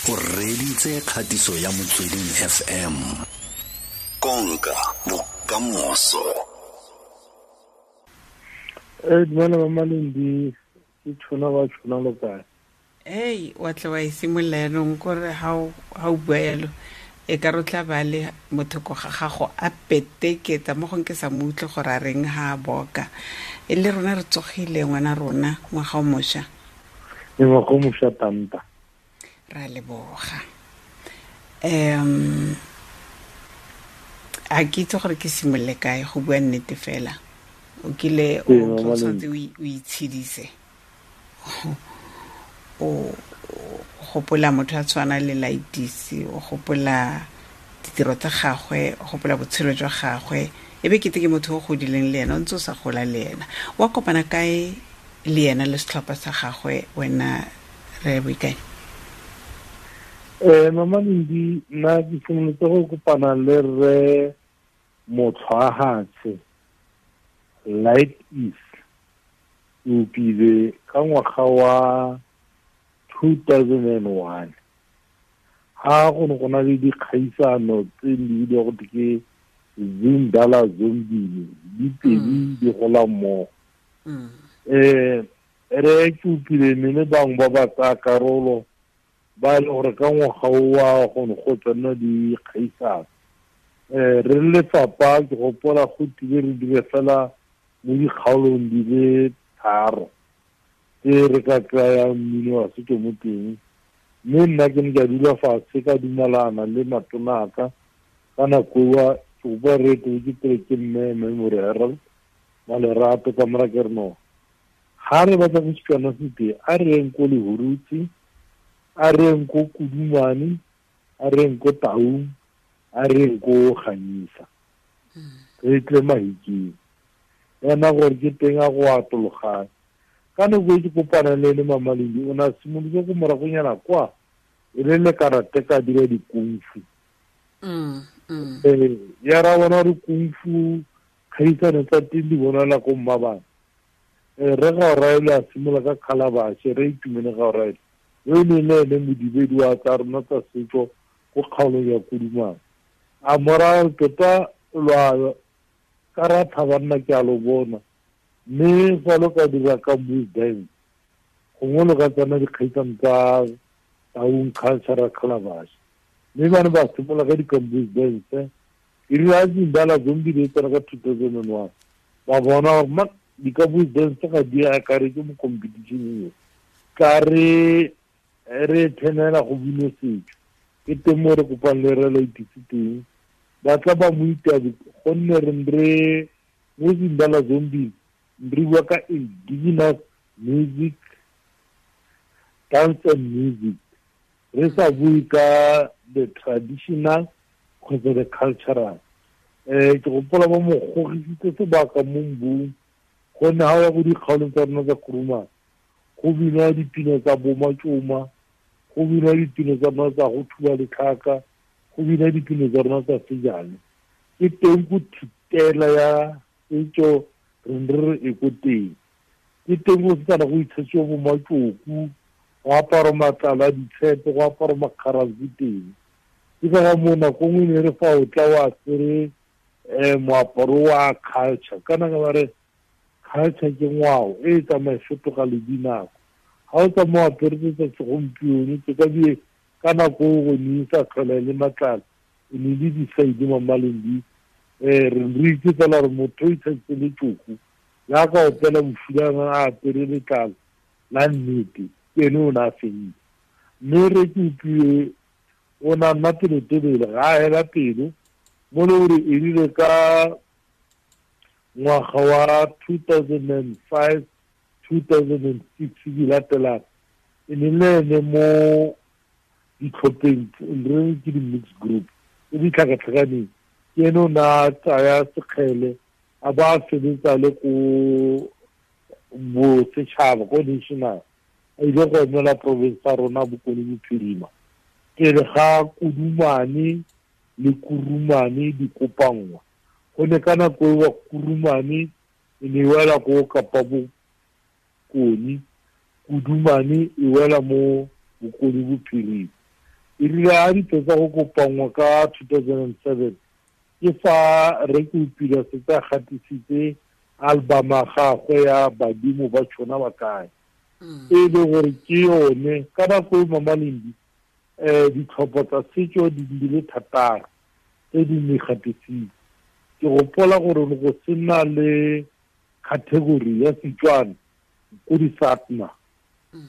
O reditse kgatiso ya Motsweding FM. Konka bokamoso. Eh dumela mama Lendi, ke tshona ba tshona lo kae? Ei, wa tla wa e simolola yaanong kore ga o bua yalo e ka re tla ba le motho ko ga gago a peteketsa mo gong ke sa mo utlwe gore a reng ha a boka. E le rona re tsogile ngwana rona ngwaga o mošwa. E ngwaga o mošwa tanta. Ra leboga. A ke itse gore ke simolole kae go bua nnete fela. O kile o tshwanetse o itshedise. O gopola motho a tshwana le Laitisi, o gopola ditiro tsa gagwe, o gopola botshelo jwa gagwe. E be kete ke motho o godileng le ena, o ntse o sa gola le ena. Wa kopana kae le ena le setlhopha sa gagwe wena re Boikanyo? Mama Lendi, nna ke simolotse go kopana le rre Motlhwahatshe Light Is Upile ka ngwaga wa 2001. Ha go ne go na le dikgaisano tse di bidiwa go ke Zindala Zombini, di pedi di gola mmogo. Re ke upile mme le bangwe ba ba tsaya karolo ba e le gore ka ngwaga o wa go ne go tsena dikgaisano. Re le lefapha ke gopola go tile re dire fela mo dikgaolong di le 3 tse re ka kry-ang mmino wa setso mo teng. Mme nna ke ne ka dula fatshe ka dumalana le matona a ka ka nako eo ke gopola re etetse ke pele ke mme Memory Harold Malerato ka mora ke re no ga re batla go Setswana se teng, a re yeng ko Lehurutse, a re yeng ko Kudumane, a re yeng ko Taung, a re yeng ko Ganyesa. Re tle Mahikeng. Ena gore ke teng a go atologane. Ka nako e ke kopana le ene Mama Lendi, o ne a simolotse ko moragonyana kwa e le le karate ka dira dikungfu. Ya ra bona gore kungfu kgaisano tsa teng di bonala ko Mmabana. Re ga o raele a simolola ka calabash, re itumele ga o raele. Yo e ne le ene modibedi wa tsa rona tsa setso ko kgaolong ya Kudumane. A morago tota lwa ka ra thaba nna ke a lo bona. Mme fa lo ka dira ka move dance, gongwe lo ka tsena dikgaisano tsa Taung Cultural Calabash. Mme ba ne ba simolola ka di-campus dance. E rile a Zindala Zombie di tsena ka 2001, ba bona gore ma di-campus dance ga di akaretse mo competition eo. Ka re re thenela go bino setso. Ke teng mo re kopang le re Laitisi teng. Ba tla ba mo itabe gonne re re mo Zindala Zombie re bua ka indigenous music, dance and music. Re sa bue ka the traditional kgotsa the cultural. Ke gopola ba mo gogisitse sebaka mo mbung, gonne ha o ya ko dikgaolong tsa rona tsa Kurumane, go binwa dipina tsa bo Matšoma, go binwa dipina tsa rona tsa go thuba letlhaka, go binwa dipina tsa rona tsa sejane. Ke teng ko thutela ya setso re ne re e ko teng. Ke teng go setsana go itshetsiwa bo matšoku, go apara matlalo a ditshepe, go apara makgaranku teng. Ke ka ga moo nako nngwe ne re fa o tla o apere moaparo wa culture. Kana ka ba re culture ke ngwao e e tsamaya e fetoga le dinako. Ga o tsamaya o apere tse tsa segompieno, tse ka die ka nako eo go ne e sa tlhola e le matlalo, e ne le disaidi Mama Lendi. Re re itse fela gore motho o itsheditse letšoko, jaaka opela bofulana a apere letlalo la nnete, ke ene o ne a fentse. Mme re ke utlwile o ne a nna pelotelele, ga a hela pelo, mo le gore e rile ka ngwaga wa 2005, 2006 di latelang, e ne le ene mo ditlhopheng, re re ke di-mixed group tse di tlhakatlhakaneng. Ke ene o ne a tsaya sekgele a ba a sebetsa le ko bosetšhaba, ko national, a ile go emela province ya rona Bokone Bophirima. Pele ga Kudumane le Kurumane di kopanngwa, gonne ka nako eo Kurumane e ne e wela ko Kapa Bokone, Kudumane e wela mo Bokone Bophirima. E rile a di fetsa go kopanngwa ka 2007, ke fa re ke upile setse a gatisitse album ya gagwe ya Badimo ba Tšhona ba Kae, e le gore ke yone ka nako e Mama Lendi ditlhopho tsa setso di le 6 tse di ne gatisitse. Ke gopola gore go sena le category ya Setswana ko di-SATMA,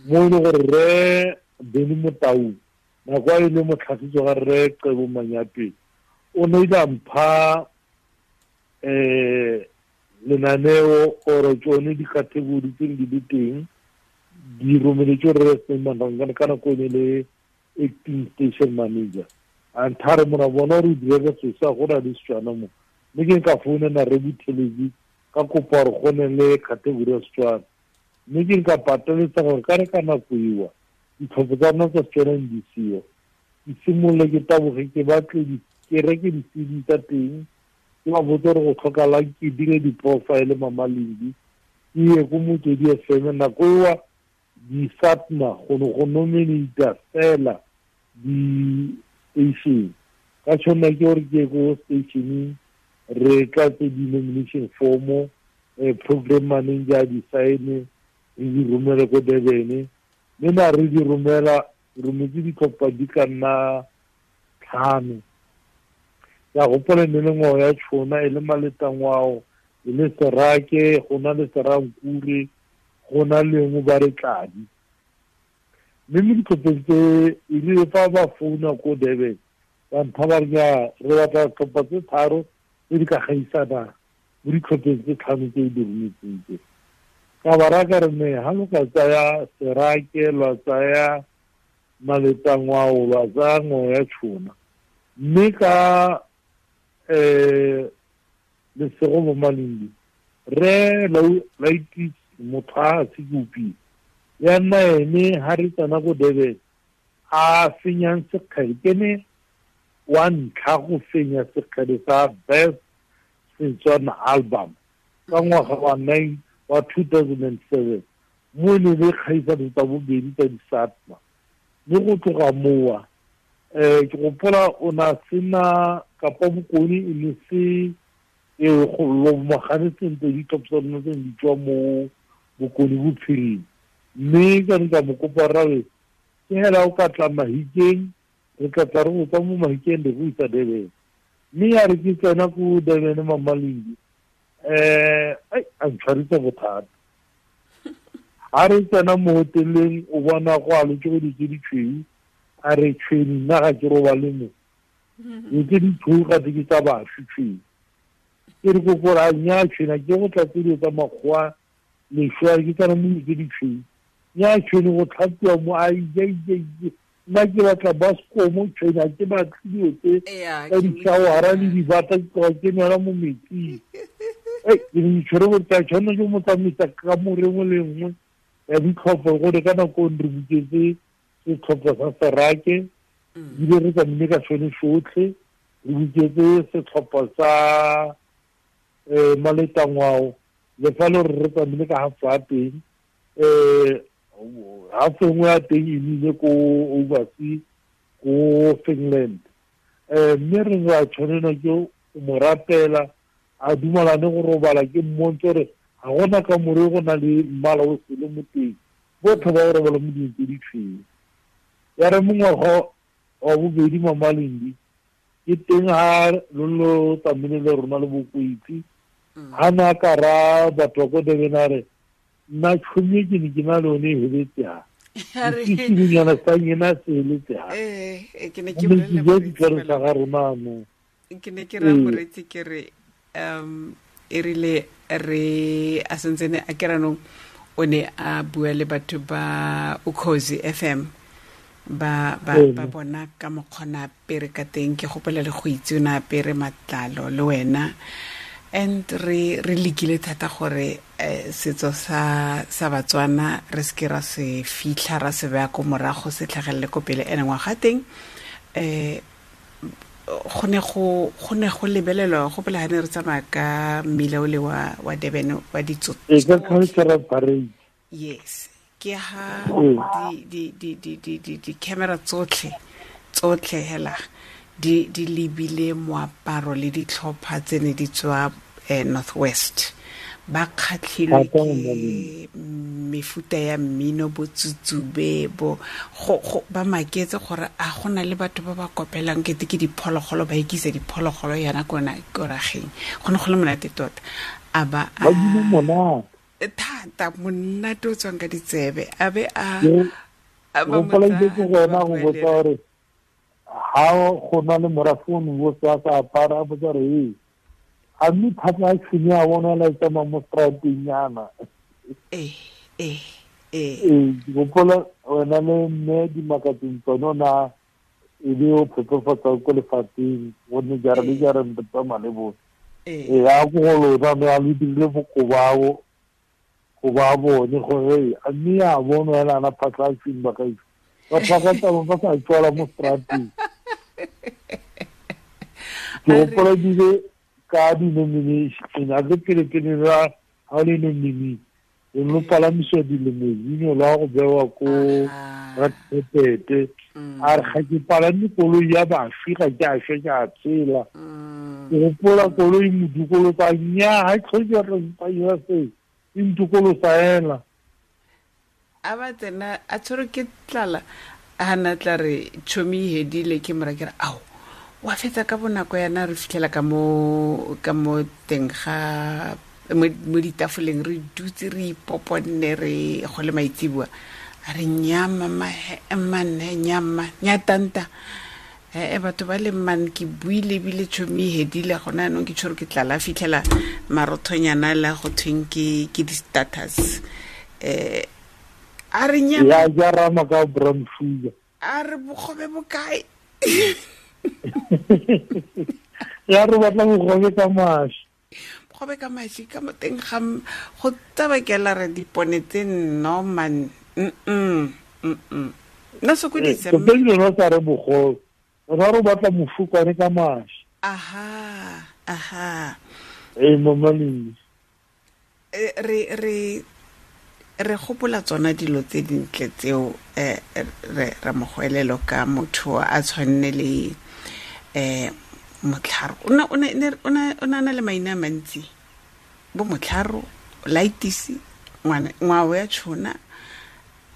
mo e le gore re Beny Motau nako a e le motlhagiso ga re Qebo Manyapele o ne ile a mpha lenaneo ore tsone di-category tse di le teng di romeletswe re Sneeman ka nako e ne le acting station manager. A nthare mona bona gore o dire ka sesa go na le Setswana mo, mme ke nka founela re Buthelezi ka kopa gore go ne le category ya Setswana, mme ke nka pateletsa gore ka re ka nako ewa ditlhopho tsa rona tsa Setswana di seo, ke simolole ke taboge ke batle ke reke di-CD tsa teng, ke ba botse gore go tlhokalang, ke dire di-profile Mama Lendi, ke ye ko Motswedi FM. Nako ewa di-SATMA go ne go nominata fela di-station, ka tshwanela ke gore ke ye ko stationeng re tlatse di-nomination form, program manager di sign, re di romele ko Durban. Mme na re di romela, rometse ditlhopha di ka nna 5. Ka gopola ne le ngwao ya Tšhona, e le Maletangwao, e le Serake, go na le Serankure, go na lengwe ba re Tladi. Mme mo ditlhopheng tse e rile fa ba founa ko Durban ba mpha ba re nya re batla tlhopha tse 3 tse di ka gaisanang mo ditlhopheng tse 5 tse di rometseng tse. Ka ba raya ka re ne ha lo ka tsaya Serake, lwa tsaya Maletangwao, lwa tsaya ngwao ya Tšhona, mme ka lesego bo Malindi re Laitis motho a se ke upile ya nna ene ha re tsena ko Durban a fenyang sekgele, ke ne wa ntlha go fenya sekgele sa best Setswana album ka ngwaga wa 2007, mo e ne le kgaisano tsa bobedi tsa di-SATMA. Mme go tloga mowa ke gopola o na sena Kapa Bokone e ne se e go lomagane sentle ditlhopho tsa rona tse di tswa mo Bokone Bophirima. Mme ka ne ka mo kopa rawe ke hela o ka tla Mahikeng, re tla tla re go tswa mo Mahikeng re go isa Durban. Mme ya re ke tsena ko Durban Mama Lendi, a ntshwaritse bothata. Ha re tsena mo hoteleng o bona go alotse go ditse ditshweu, a re tshweni nna ga ke robale mo, dilo tse di tshweu ga ke tsa bašwi tshweu. Ke re kokore a nnyaa tshwena ke go tlatse dilo tsa makgowa leswe, ke tsena mo dilo tse di tshweu, nnyaa tshwene go tlhapiwa mo, a ija ija ija, nna ke batla baskomo tshwene, ga ke batle dilo tse tsa di-showera le dibata, ke tloga ke nwela mo metsing. Ke ne ke tshwere gore ke a tshwanela ke mo tsamaisa ka more nngwe le nngwe ya ditlhopho, gore ka nako re buketse setlhopha sa Serake, ebile re tsamaile ka sone sotlhe, re buketse setlhopha sa Maletangwao, le fa le gore re tsamaile ka half ya teng, half e nngwe ya teng e nnile ko overseas ko Finland. Mme re ra tshwanelwa ke go mo rapela a dumalane go robala, ke mmontshe gore ga gona ka more go na le mmala o sele mo teng, botlhe ba go robala mo dilong tse di tshweu. Ya re mongwaga wa bobedi Mama Lendi ke teng ha lo lo tsamaile le rona le Bokwetsi, ha na ka ra batho ba ko Durban a re nna tšhomi ke ne ke na le yone e heletse ha, sesinyana sa nyena se heletse ha. Ke ne ke Mme bolella ke moreetsi ditlhare tsa fela. ga rona mo. Ke ne ke raya moreetsi ke re e rile re a sentsene a ke ranong o ne a bua le batho ba Ukhozi FM ba ba ba bona ka mokgona apere ka teng, ke gopola le go itse o ne apere matlalo le wena, and re lekile thata gore setso sa Batswana re seke ra se fitlha ra se beya ko morago se tlhagelele ko pele. Ene ngwaga teng go ne go lebelelwa, go pele ha ne re tsamaya ka mmila o le wa Durban wa ditso E ka cultural parade. Yes, ke ha di camera tsotlhe Tsotlhe hela di lebile moaparo le ditlhopha tse ne di tswa Northwest. Ba kgatlhilwe ke mefuta ya mmino, bo tsutsube, bo go ba maketse gore a gona le batho ba ba kopelang kete ke diphologolo, ba ikisa diphologolo yana kona korageng. Go ne go le monate tota. A ba a thata monate o tswang ka ditsebe, a be a ba mo tsaya go botsa gore ha go na le morafe o ne o sa apara, a botsa gore a mme thata a tshwene a bona la tsamaya mo strateng yana. Ee, gopola wena le mme dimakatseng tsone o na e be o phepafatsa ko lefatsheng, gonne jara le jara re tsamaya le bone. Ee, a ko go lona mme a le dirile bokobao go ba bone gore a mme a bonwa ela ana phatla a tshwene ba kae. Batho ba ka tsamaya ba sa tswala mo strateng. Ke gopola ebile ka di-nomination, a ke pele-pele ra ga le nominee, o no palamisiwa di-limousine la go bewa ko Rakgepete. A re ga ke palame koloi ya bašwi, ga ke a šwa, ke a tshela. Ke gopola koloi modikolosa, nnyaa, ga e tlhoke re mpaya se, e ntikolosa ela. A ba tsena a tshwerwe ke tlala, a na tla re tšhomi e hedile, ke mora ke re ao wa fetsa ka bonako yana, re fitlhela ka mo teng ga mo ditafoleng, re dutse re ipoponne, re go le maitseboa. A re nyama manne nyama nyatanta batho ba le man ke buile ebile tšhomi e hedile gona yanong, ke tshwerwe ke tlala. Fitlhela marothonyana la go thweng ke di-status. A re nyama ya jarama ka brown sugar, a re bogobe bokae? Ya re batla bogobe ka mashi, bogobe ka mashi ka mo teng ga go tsabakela re dipone tse nno man. Nna sokodisa mme lona sa re bogobe, rona re batla mofukwane ka mashi. Aha. Ee, mama Lindi. Re gopola tsona dilo tse dintle tseo, re mogoelelo ka motho a tshwanne le Motlharo. O na le maina a mantsi, bo Motlharo, Laitisi, ngwao ya tshona.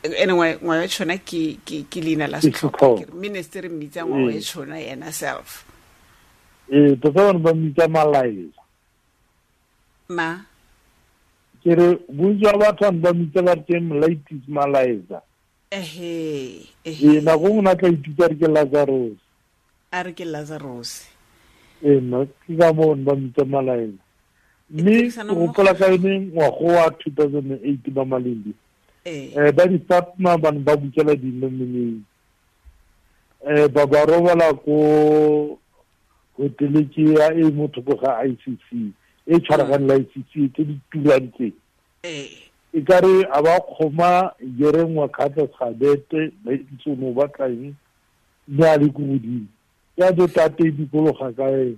Ene ngwao ya tshona ke leina la setlhopha, minister mmitsa ngwao ya tshona yena self. Ee, tota bane ba mmitsa Malaela. Ma ke re bontsi ba batho ba mmitsa ba re ke Molaitisi Malaela. Ehe. Ee, nako nngwe na tla ithuta re ke Lazarus. A re ke Lazarus. Ee, nna ke ka moo ba mmitsa Malaela. Mme ke gopola ka yone ngwago wa 2008 ba Malindi. Ba di-Fatma bane ba bukela di-nominee. Ba ba robala ko hotele ke ya e mo thoko ga ICC, e tshwaragane le ICC tse di turang tse. E ka re a ba kgoma jerengwa kgatla gabete, ba itse o ne o batla eng, mme a le ko godimo. Ya beta e dikologa ka ene.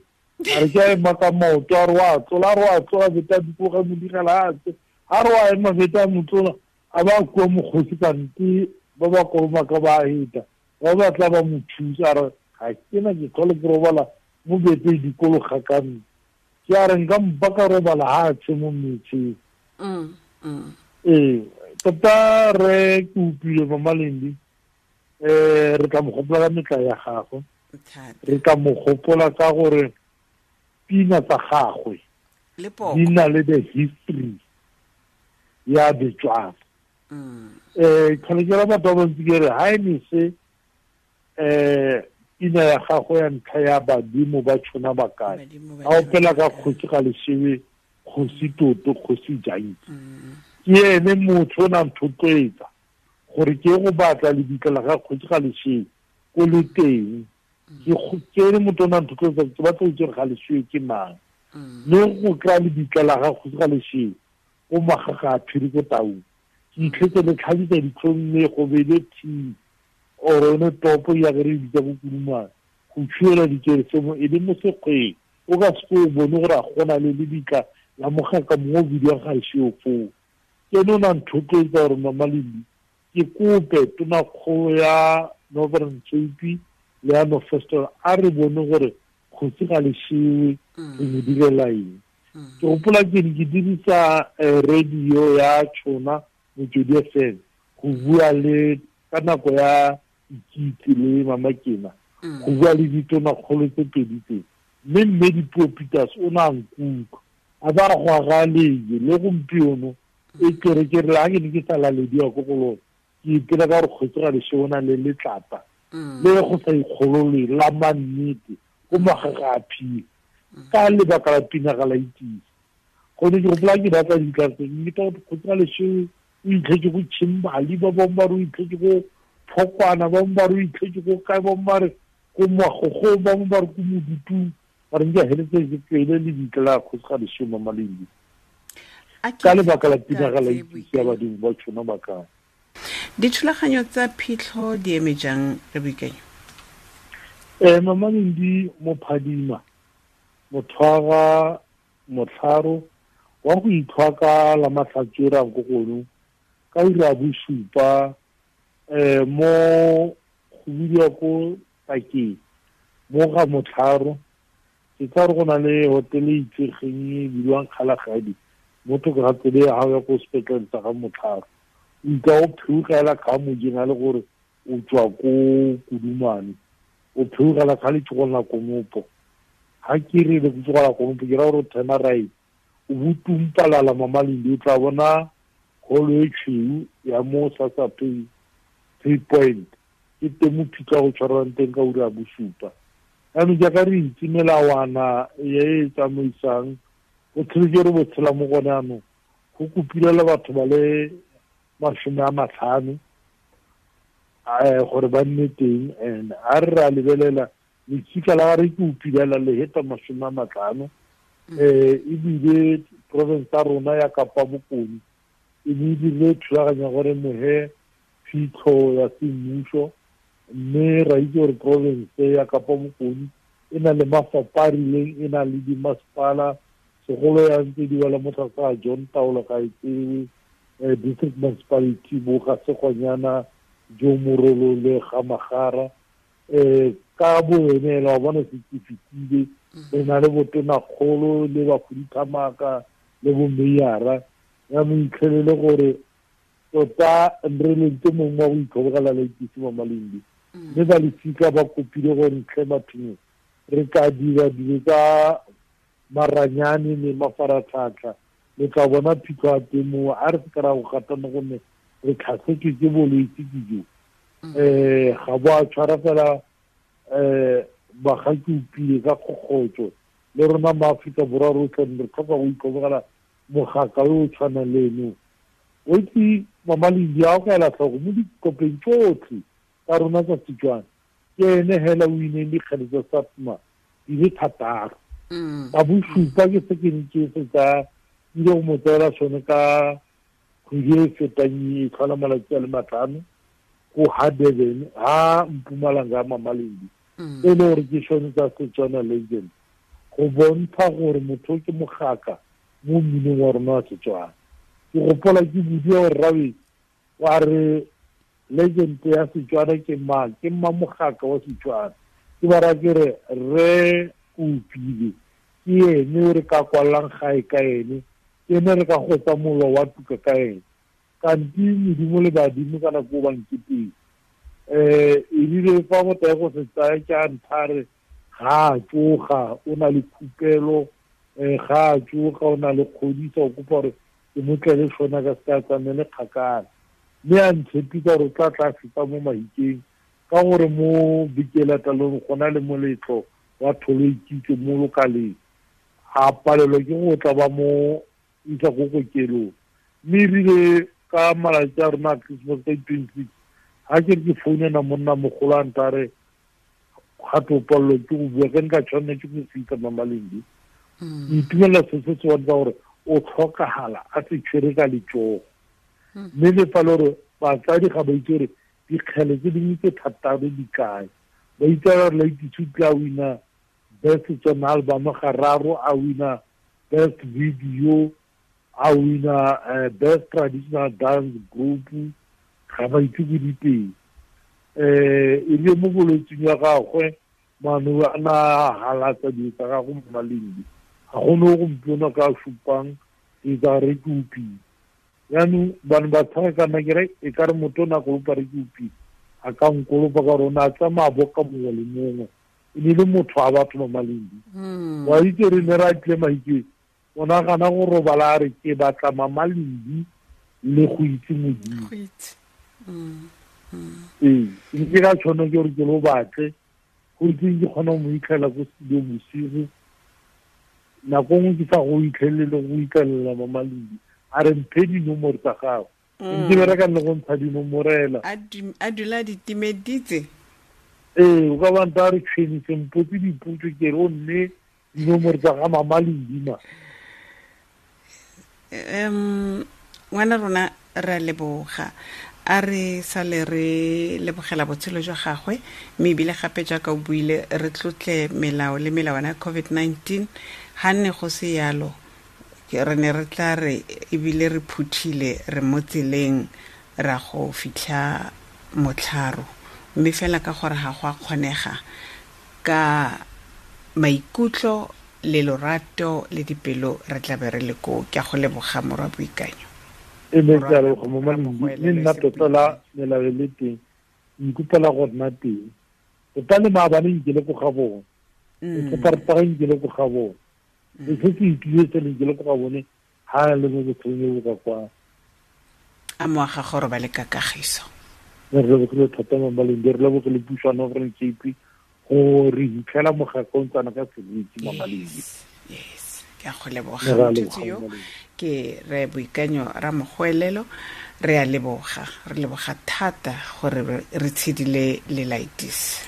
A re ke a ema ka maoto, a re wa tlola, a re wa tlola, beta dikologa mo digela a tse. A re wa ema beta mo tlola, a ba kua mokgosi kante ba ba kolomaka ba heta. Ba batla ba mo thusa, a re ga ke na ke tlhole ke robala mo bete e dikologa ka nna. Ke a re nka mpa ka robala ha a tse mo metseng. Ee, tota re ke utlwile Mama Lindi, re tla mo gopola ka metla ya gagwe. Re tla mo gopola ka gore pina tsa gagwe di na le the history ya Betswana. Tlhole ke ra batho ba bantsi ke re ha e ne se pina ya gagwe ya ntlha ya badimo ba tshona ba kae, a opela ka kgosi ga Leshewe, kgosi Toto, kgosi Janki. Ke ene motho o nang thotloetsa gore ke go batla lebitla la ga kgosi ga Leshewe ko le teng. Ke ene motho o nang thotloetsa ke batla go itse gore ga Leshewe ke mang. Mme go kry-a lebitla la ga kgosi ga Leshewe ko Magaga a Phiri ko Taung, ke itlhetse le tlhabisa ditlhong mme go beile tea or yone topo ya re bitsa bo Kurumane, go tshuela dikereso mo e le mo sekgweng, o ka se o bone gore a gona le lebitla la mogaka mongwe o bidiwang ga Leshewe foo. Ke ene o nang thotloetsa gore Mama Lindi ke kope tonakgolo ya Northern Cape Leano Festival, a re bone gore Kgosi Galeshewe re mo direla eng. Ke gopola ke ne ke dirisa radio ya Tšhona Motswedi FM go bua le ka nako ya Ikitse le Mama Kena, go bua le ditonakgolo tse pedi tse, mme Dipuo Peters o ne a nkutlwa a ba go aga leje le gompieno e kere ke re la ke ne ke sa lalediwa ko go lone, ke ipela ka gore Kgosi Galeshewe o na le letlapa le go sa ikgolole la mannete ko magaga a phile ka lebaka la pina ga la itise. Gone ke gopola ke batla ditlatse mme ka gore Kgosi Galeshewe o itlhetse ko Chimbali, ba bangwe ba re o itlhetse ko Phokwana, ba bangwe ba re o itlhetse ko kae, ba bangwe ba re ko Magogo, ba bangwe ba re ko Modutung, ba re nke heletse ke tswele le ditla la Kgosi Galeshewe Mamalindi ka lebaka la pina ga la itse ya badimo ba tshona ba kae. Dithulaganyo tsa phitlho di eme jang re Boikanyo? Mamalindi mophadima mothwaga motlharo wa go itlhwa ka la matlhatswera ko gono ka ura ya bosupa, mo go bidiwa ko Takeng mo ga motlharo. Ke tsa re go na le hotele e itsegeng e bidiwang Kgalagadi mo thoko ga tsela ya gago ya ko sepetlele sa ga motlharo. O itla o phewogela ka mojeng a le gore o tswa ko Kudumane, o phewogela ka letsogo la konopo. Ha ke re le letsogo la konopo ke ra gore o turn right, o botumpalala Mamalindi, o tla bona holo e tshweu ya mo Sassa Pay Point, ke teng mo phitlho go tshwarwang teng ka ura ya bosupa. Jaanong jaaka re itse melawana e e tsamaisang botshelo jo re bo tshela mo gone jaanong, go kopile batho ba le 50 gore ba nne teng. And a re ra lebelela letsika la re ke upilela le heta 50, ebile province ya rona ya Kapa Bokone e ne e dirile thulaganyo gore mohe phitlho ya semmuso, mme ra itse gore province ya Kapa Bokone e na le mafapha a rileng, e na le dimasepala, segolo ya ntse di wela mo tlase ga John Taolo ga e tsewe, district municipality bo ga Segonyana, Jo Morolo le ga Magara. Ka bo ene ela wa bona se ke fetile, re na le botonakgolo le bakhuduthamaga le bo meyara. Ya mo itlhelele gore tota re lentse mongwe wa go itlhobogela la itse mo Malindi, mme ba lefika ba kopile gore ntlhe bathong re ka dira dilo tsa maranyane le mafaratlhatlha, le tla bona phitlho ya teng moo. A re se ka ra go gatana gonne re tlhasetswe ke bolwetse ke jo. Ga bo a tshwara fela bagaki upile ka kgokgotso le rona ma Afrika Borwa rotlhe re tlhoka go itlhobogela mogaka yo o tshwanang le eno. O itse Mamalindi a o ka ela tlhoko mo dikopeng tsotlhe tsa rona tsa Setswana, ke ene hela o ineng dikgele tsa SAPMA di le 6. Ka bosupa ke se ke ne ke se tsa ile go mo tseela sone ka kgwedi e fetang e tlhola malatsi a le 5 ko ha Durban ha Mpumalanga Mamalindi, e le gore ke sone tsa Setswana Legend, go bontsha gore motho ke mogaka mo mminong wa rona wa Setswana. Ke gopola ke bodiwa gore rabe wa re legend ya Setswana ke mang, ke mma mogaka wa Setswana. Ke ba raya ke re re Upile ke ene o re ka kwallang gae ka ene, ke ene re ka gotsa mollo wa tuka ka ene. Kanti modimo le badimo ka nako ba nketeng. Ebile fa motho ya go se tsaya ke a nthare ga a tsoga o na le khupelo, ga a tsoga o na le kgodisa, o kopa gore ke mo tlele sona ka se ka tsamaele kgakala. Mme a ntshepisa gore o tla tla feta mo Mahikeng ka gore mo Bikelatalong go na le moletlo wa tholo ikitse mo lokaleng, a palelwa ke go tla ba mo isa ko kokelong. Mme ebile ka malatsi a rona a Christmas ka 26, ha ke re ke founela monna mogolo a ntare gape o palelwa ke go bua, ke nka tshwanela ke go fitlha Mamalindi. Ke itumelela se se bontsha gore o tlhokagala a se tshwere ka letsogo. Mme le fa le gore batsadi ga ba itse gore dikgele tse dingwe tse 6 di kae, ba itse gore Laitse o tla wina best Setswana album gararo, a wina best video, a wina best traditional dance group, ga ba itse ko diteng. E le mo bolwetsing ya gagwe mano a na halatsa dilo tsa gagwe mo malindi ga gone o gompieno ka supang ke tsa re ke upile. Yaanong bane ba tshega kana ke re e ka re motho o ne a kolopa re ke upile a ka nkolopa ka gore o ne a tsamaya boka mongwe le mongwe, e ne le motho a batho ba malindi. Wa itse re ne ra tle maike o nagana go robala a re ke batla mamalindi le go itse Modimo. Ee, ke ka tshwana ke gore ke lo batle go itseng ke kgona go mo itlhela ko studio bosigo, nako nngwe ke sa go itlhelele go itlhelela mamalindi a re mphe dinomoro tsa gago. Ke bereka le go ntsha dinomorela a dula di timeditse. Ee, o ka banta a re tshwenise mpotse dipotso ke re o nne dinomoro tsa ga mamalindi ma. Ngwana rona re a leboga, a re sale re lebogela botshelo jwa gagwe, mme ebile gape jaaka o buile re tlotle melao le melawana ya COVID-19. Ga nne go se yalo re ne re tla re ebile re phuthile re mo tseleng ra go fitlha motlharo, mme fela ka gore ga go a kgonega ka maikutlo le lorato le dipelo re tla be re le koo. Ke a go leboga morwa Boikanyo. E ne ke a leboga mo malindi, mme nna tota la melao e le teng nkopela go nna teng tota le maabane nke le ko ga bone, separapara nke le ko ga bone, se se itlile se le ke le ko ga bone ha le mo botshelong bo ka kwa. A moaga gore ba le ka kagiso. Re lebogile thata mo malindi, re lebogile puso ya Northern Cape go re hitlhela mogaka o ntsana ka seriti mo malindi. Yes, ke a go leboga motho yo ke re Boikanyo Ramogwelelo, re a leboga, re leboga thata gore re tshedile le Laitis.